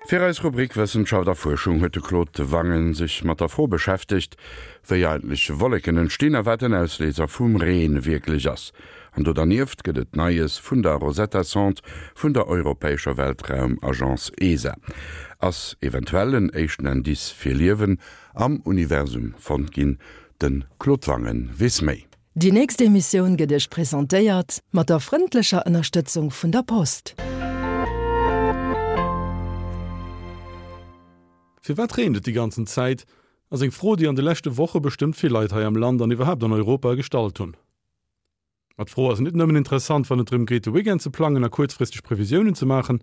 Fir eis Rubrik Wëssenschaft a Fuerschung huet de Claude Wangen sech mat der Fro beschäftegt, wéi eigentlech Wolleken entstinn a wat den Ausléiser vum Reen wierklech ass. An do dernieft gëtt et Neies vun der Rosetta-Sonde vun der europäescher Weltraumagence ESA. Ass eventuell en éischten Indice fir Liewen am Universum fonnt ginn? De Claude Wangen weess méi. Déi nächst Emissioun gëtt Iech presentéiert mat der frëndlecher Ënnerstëtzung vun der Post. Firwat reent et déi ganzen Zäit? ass eng Fro, déi an de leschte Woche bestëmmt vill Leit hei am Land an iwwerhaapt an Europa gestallt hunn. Ma d'Fro ass net nëmmen interessant, wann et drëm geet, de Weekend ze plangen a kuerzfristeg Previsiounen ze maachen.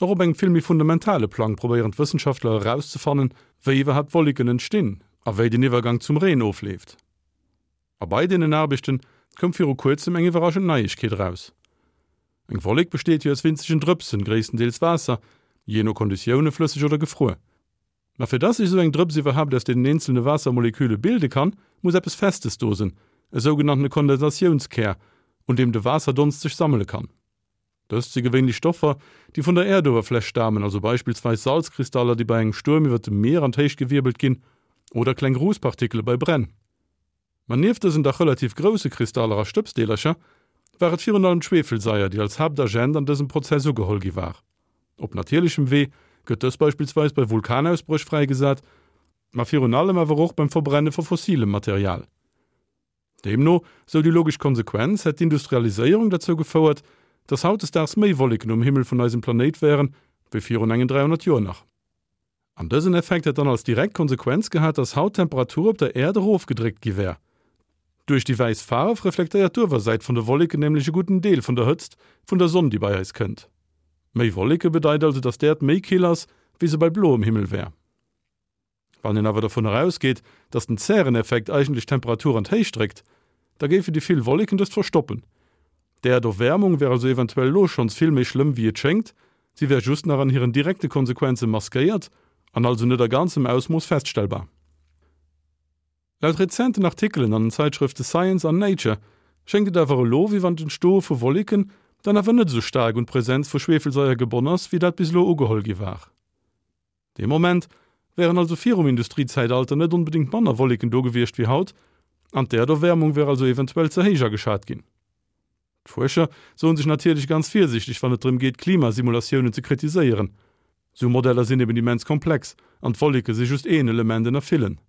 Och op engem vill méi fundamentale Plang probéieren d'Wëssenschaftler erauszefannen, wéi iwwerhaapt Wolleken entstinn a wéi den Iwwergang zum Reen ofleeft. A bei deenen Aarbechte koum viru kuerzem eng iwwerraschend Neiegkeet eraus. Eng Wollek besteet jo aus winzegen Drëpsen, gréisstendeels Waasser, jee no Konditioune flësseg oder gefruer. Ma fir dass sech esou eng Drëps iwwerhaapt aus deenen eenzelne Waassermoleküle bilde kann, muss eppes Festes do sinn, e sougenanntene Kondensationskär, un deem de Waasserdonst sech sammele kann. Dëst si gewéinlech Stoffer, déi vun der Äerduewerfläch stamen, also beispillsweis Salzkristaller, déi bei engem Stuerm iwwer dem Mier an d'Héicht gewierbelt ginn, oder kleng Rußpartikele bei Bränn. Ma nieft dësen dach relativ grousse Kristaller a Stëbsdeelercher war et virun allem d'Schwefelsaier, déi als Haaptagent an dësem Prozess ugeholl gi war. Op natierlechem Wee gëtt dës beispillsweis bei Vulkanausbréch fräigesat, ma virun allem awer och beim Verbrenne vu fossilem Material. Deemno, sou déi logesch Konsequenz, hätt d'Industrialiséierung derzou gefouert, dass hautdesdaags méi Wolleken um Himmel vun eisem Planéit wären, wéi virun engen 300 Joer nach. An dësen Effekt hätt dann als direkt Konsequenz gehat, dass haut d'Temperatur op der Äerd erofgedréckt gi wär. Duerch déi wäiss Faarf reflektéiert d'Uewersäit vun de Wolleken nämlech e gudden Deel vun der Hëtzt vun der Sonn, déi bei eis kënnt. Méi Wolleke bedeit also, dass d'Äerd méi kill ass, wéi se bei bloem Himmel wär. Wann een awer dovunner ausgeet, dass den Zäreneffekt eigentlech d'Temperatur an d'Héicht dréckt, da géifen déi vill Wolleken dëst verstoppen. D'Äerderwäermung wär also eventuell elo schonns vill méi schlëmm wéi et schéngt, si wär just nach an hiren direkte Konsequenze maskéiert an also net a ganzem Ausmooss feststellbar. Laut rezenten Artikelen an den Zäitschrëfte Science an Nature schéngt et awer elo, wéi wann d'Entstoe vu Wolleken dann awer net esou staark un d'Presenz vu Schweefelsaier gebonn ass, wéi dat bis elo ugeholl gi war. Dee Moment wären also virum Industriezäitalter net onbedéngt manner Wolleken do gewiescht wéi haut, an d'Äerderwäermung wär also eventuell ze héich ageschat ginn. D'Fuerscher soen sech natierlech ganz virsiichteg wann et drëm geet Klimasimulatiounen ze kritiséieren. Sou Modeller sinn eben immens komplex an d'Wolleke si just een Element ënner villen.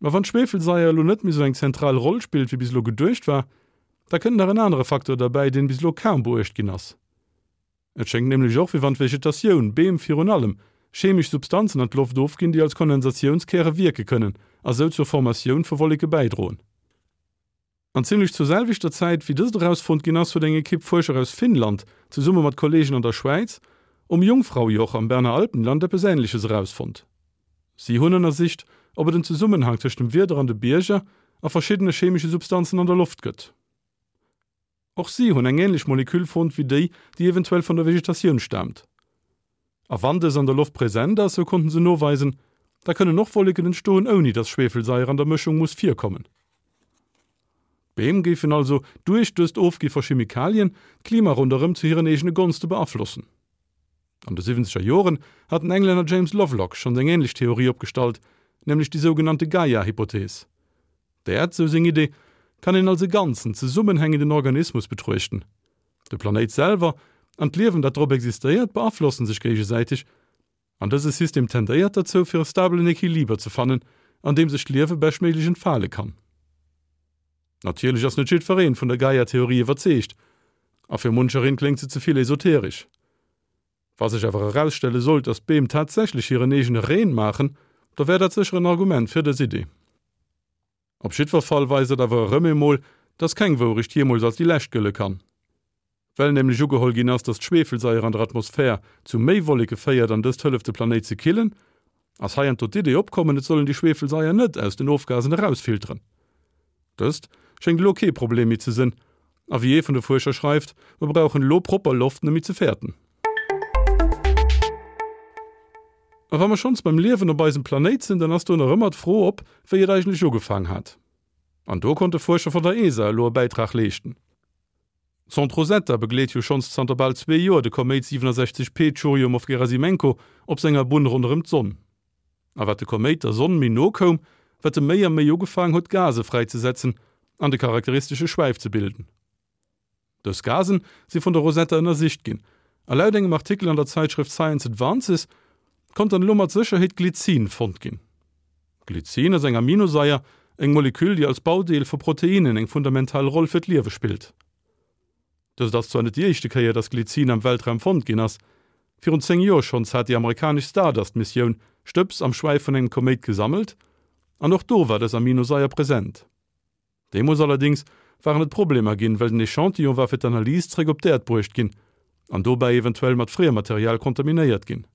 Ma wann d'Schweefelsaier elo net méi sou eng zentral Roll spillt wéi bis elo geduecht war, da kënnt nach en anere Facteur derbäi, deen bis elo kaum beuecht ginn ass. Et schéngt nämlech och, wéi wann d'Vegetatioun, Beem virun allem, chemesch Substanzen an d'Loft ofginn, déi als Kondensatiounskäre wierke kënnen a sou zur Formatioun vu Wolleke bäidroen. An zimmlech zur selwechter Zäit, wéi dëst erausfonnt ginn ass, huet eng Ekipp Fuerscher aus Finnland zesumme mat Kolleegen an der Schwäiz um Jungfraujoch am Berner Alpenland eppes Änleches erausfonnt. Si hunn ënnersicht, ob et en Zesummenhang tëscht dem Wieder an de Bierger a verschiddene chemesche Substanzen an der Loft gëtt. Och si hunn eng änlech Moleküll fonnt wéi déi, déi eventuell vun der Vegetatioun staamt. A wann dës an der Loft present ass, sou konnten se noweisen, da kënnen och Wolleken entstoen ouni dass Schweefelsaier an der Mëschung muss virkommen. D'Beem géifen also duerch dëst Ofgi vu Chemikalien d'Klima ronderëm zu hiren eegene Gonste beaflossen. An de siwwenzeger Joren hat den Englänner James Lovelock schonns eng änlech Theorie opgestallt, nämlech déi sougenannte Gaia-Hypothees. D'Äerd, sou seng Idee, kann een als e ganzen, zesummenhängenden Organismus betruechten. De Planéit selwer an d'Liewen, dat drop existéiert, beaflossen sech géigesäiteg, an dëse System tendéiert derzou, fir e stabelen Equiliber ze fannen, an deem sech d'Liewe beschtméiglech entfale kann. Natierlech ass net jiddwereen vun der Gaia-Theorie iwwerzeegt, a fir munchereen kléngt se ze vill esoteresch. Wa sech awer erausstelle sollt, datt d'Beem tatsächlech hiren eegene Reen maachen, da wär dat sécher en Argument fir dës Idee. Op jiddwer Fall weist dat awer erëm eemol, datt keng Wourecht jeemools als déi lescht gëlle kann. Well nämlech ugeholl ginn ass, datt d'Schweefelsaier an der Atmosphär zu méi Wolleke féiert an dëst hëlleft de Planéit ze killen, ass heiansdo d'Idee opkommen, et soll een déi Schweefelsaier net aus den Ofgasen erausfilteren. Dëst schéngt elo kee Problem méi ze sënn a wéi ee vun de Fuerscher schreift, mer brauchen elo propper Loft net méi ze fäerten. A wa mer schonns beim Liewen op eisem Planéit sinn, dann ass do nach ëmmer d'Fro op, wéi et eigentlech ugefaang hat. An do konnte Fuerscher vun der ESA elo e Bäitrag leeschten. D'Sonde Rosetta begleet jo schonns zanter bal zwee Joer de Koméit 67P Tschurjumow-Gerasimenko op senger Bunn ronderëm d'Sonn. A wat de Koméit der Sonn méi no koum, wat e méi a méi ugefaang huet Gase fräizesetzen an de charakteristesche Schwäif ze bilden. Dës Gasen si vun der Rosetta ënnersicht ginn, a laut engem Artikel an der Zäitschrëft Science Advances konnt dann elo mat Sécherheet Glycin fonnt ginn. Glycin ass eng Aminosaier, eng Moleküll, déi als Baudeel vu Proteinnen eng fundamental Roll fir d'Liewe spillt. Dëst ass zwar net déi éischte Kéier, dass Glycin am Weltraum fonnt ginn ass. Virun 10 Joer schonns hat déi amerikanesch Stardust-Missioun Stëbs am Schwäif vun engem Koméit gesammelt, an och do war dës Aminosaier present. Deemools allerdéngs waren et Problemer ginn, well den Echantillon war fir d'Analys zréck op d'Äerd bruecht ginn an dobäi eventuell mat Friemmaterial kontaminéiert ginn.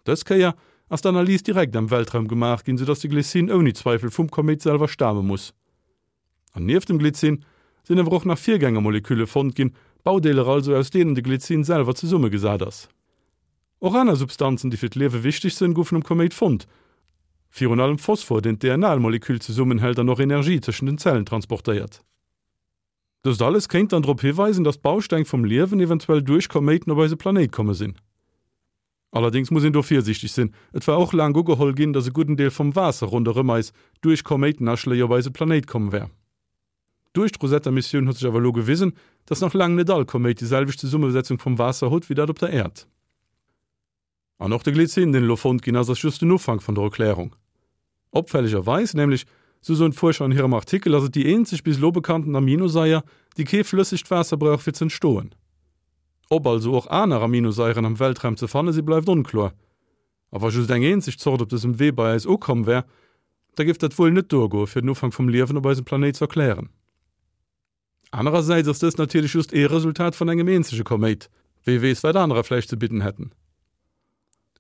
Dës Kéier ass d'Analys direkt am Weltraum gemaach ginn, soudass de Glycin ouni Zweifel vum Koméit selwer stame muss. An nieft dem Glycin sinn awer och nach Virgängermolekülle fonnt ginn, Baudeeler also, aus deenen de Glycin selwer zesummegesat ass. Och aner Substanzen, déi fir d'Liewe wichteg sënn, goufen um Koméit fonnt. Virun allem Phosphor, deen d'DNA-Moleküll zesummenhält an och Energie tëschent den Zellen transportéiert. Dëst alles kéint dann drop hiweisen, datt d'Bausteng vum Liewen eventuell duerch Koméiten op eise Planéit komme sinn. Allerdéngs muss een do virsiichteg sinn, Et war och laang ugeholl ginn, datt e gudden Deel vum Waasser ronderëm eis duerch Koméitenaschléi op eise Planéit komm wär. Duerch d'Rosetta-Missioun huet sech awer elo gewisen, dass nach laang net all Koméit déi selwecht Zesummesetzung vum Waasser hutt wéi dat op der Äerd. An och de Glycin, deen elo fonnt ginn ass, ass just den Ufank vun der Erklärung. Opfällegerweis nämlech, sou soen d'Fuerscher an hirem Artikel, ass et déi eenzeg bis elo bekannten Aminosaier, déi kee flëssegt Waasser brauch fir z'entstoen. Ob also och aner Aminosaieren am Weltraum ze fanne si bleift onkloer. A wa just eng eenzeg Zort op dësem Wee bei eis ukomm wär, da géif dat wuel net duergoe fir den Ufank vum Liewen op eisem Planéit z'erklären. Anerersäits ass dëst natierlech just ee Resultat vun engem eenzege Koméit, wee weess wat anerer vläicht ze bidden hätten.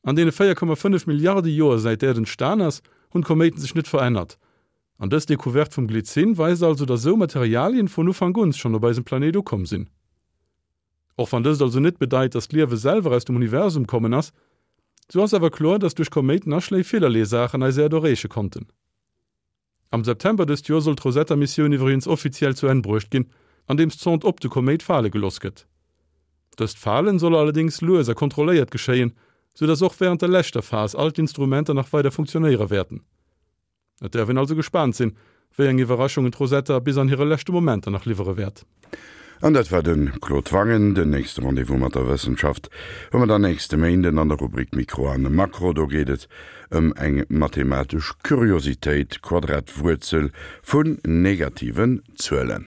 An deene 4,5 Milliarde Joer säit d'Äerd entstan ass, hunn d'Koméiten sech net verännert. An dës Decouverte vum Glycin weist also, datt esou Materialien vun Ufank un schonn op eisem Planéit ukomm sinn. Och wann dëst also net bedeit, dass d'Liewe selwer aus dem Universum kommen ass, sou ass awer kloer, dass duerch Koméitenaschléi villerlee Saachen eis Äerd erreeche konnten. Am September dëst Joer soll d'Rosetta-Missioun iwwregens offiziell zu Enn bruecht ginn, andeems d'Sonde op de Koméit fale geloss gëtt. Dëst Falen soll allerdéngs lues a kontrolléiert geschéien, sou dass och wärend der leschter Phas all d'Instrumenter nach weider funktionéiere wäerten. Et däerf een also gespaant sinn, wéi eng Iwwerraschungen d'Rosetta bis an hire leschte Momenter nach liwwere wäert. An dat war de Claude Wangen. Den nächste Rendez-vous mat der Wëssenschaft hu mer dann nächste Méinden an der Rubrik Mikro an Makro. Do geet et ëm eng mathematesch Kuriositéit, d'Quadratwuerzel vun negativen Zuelen.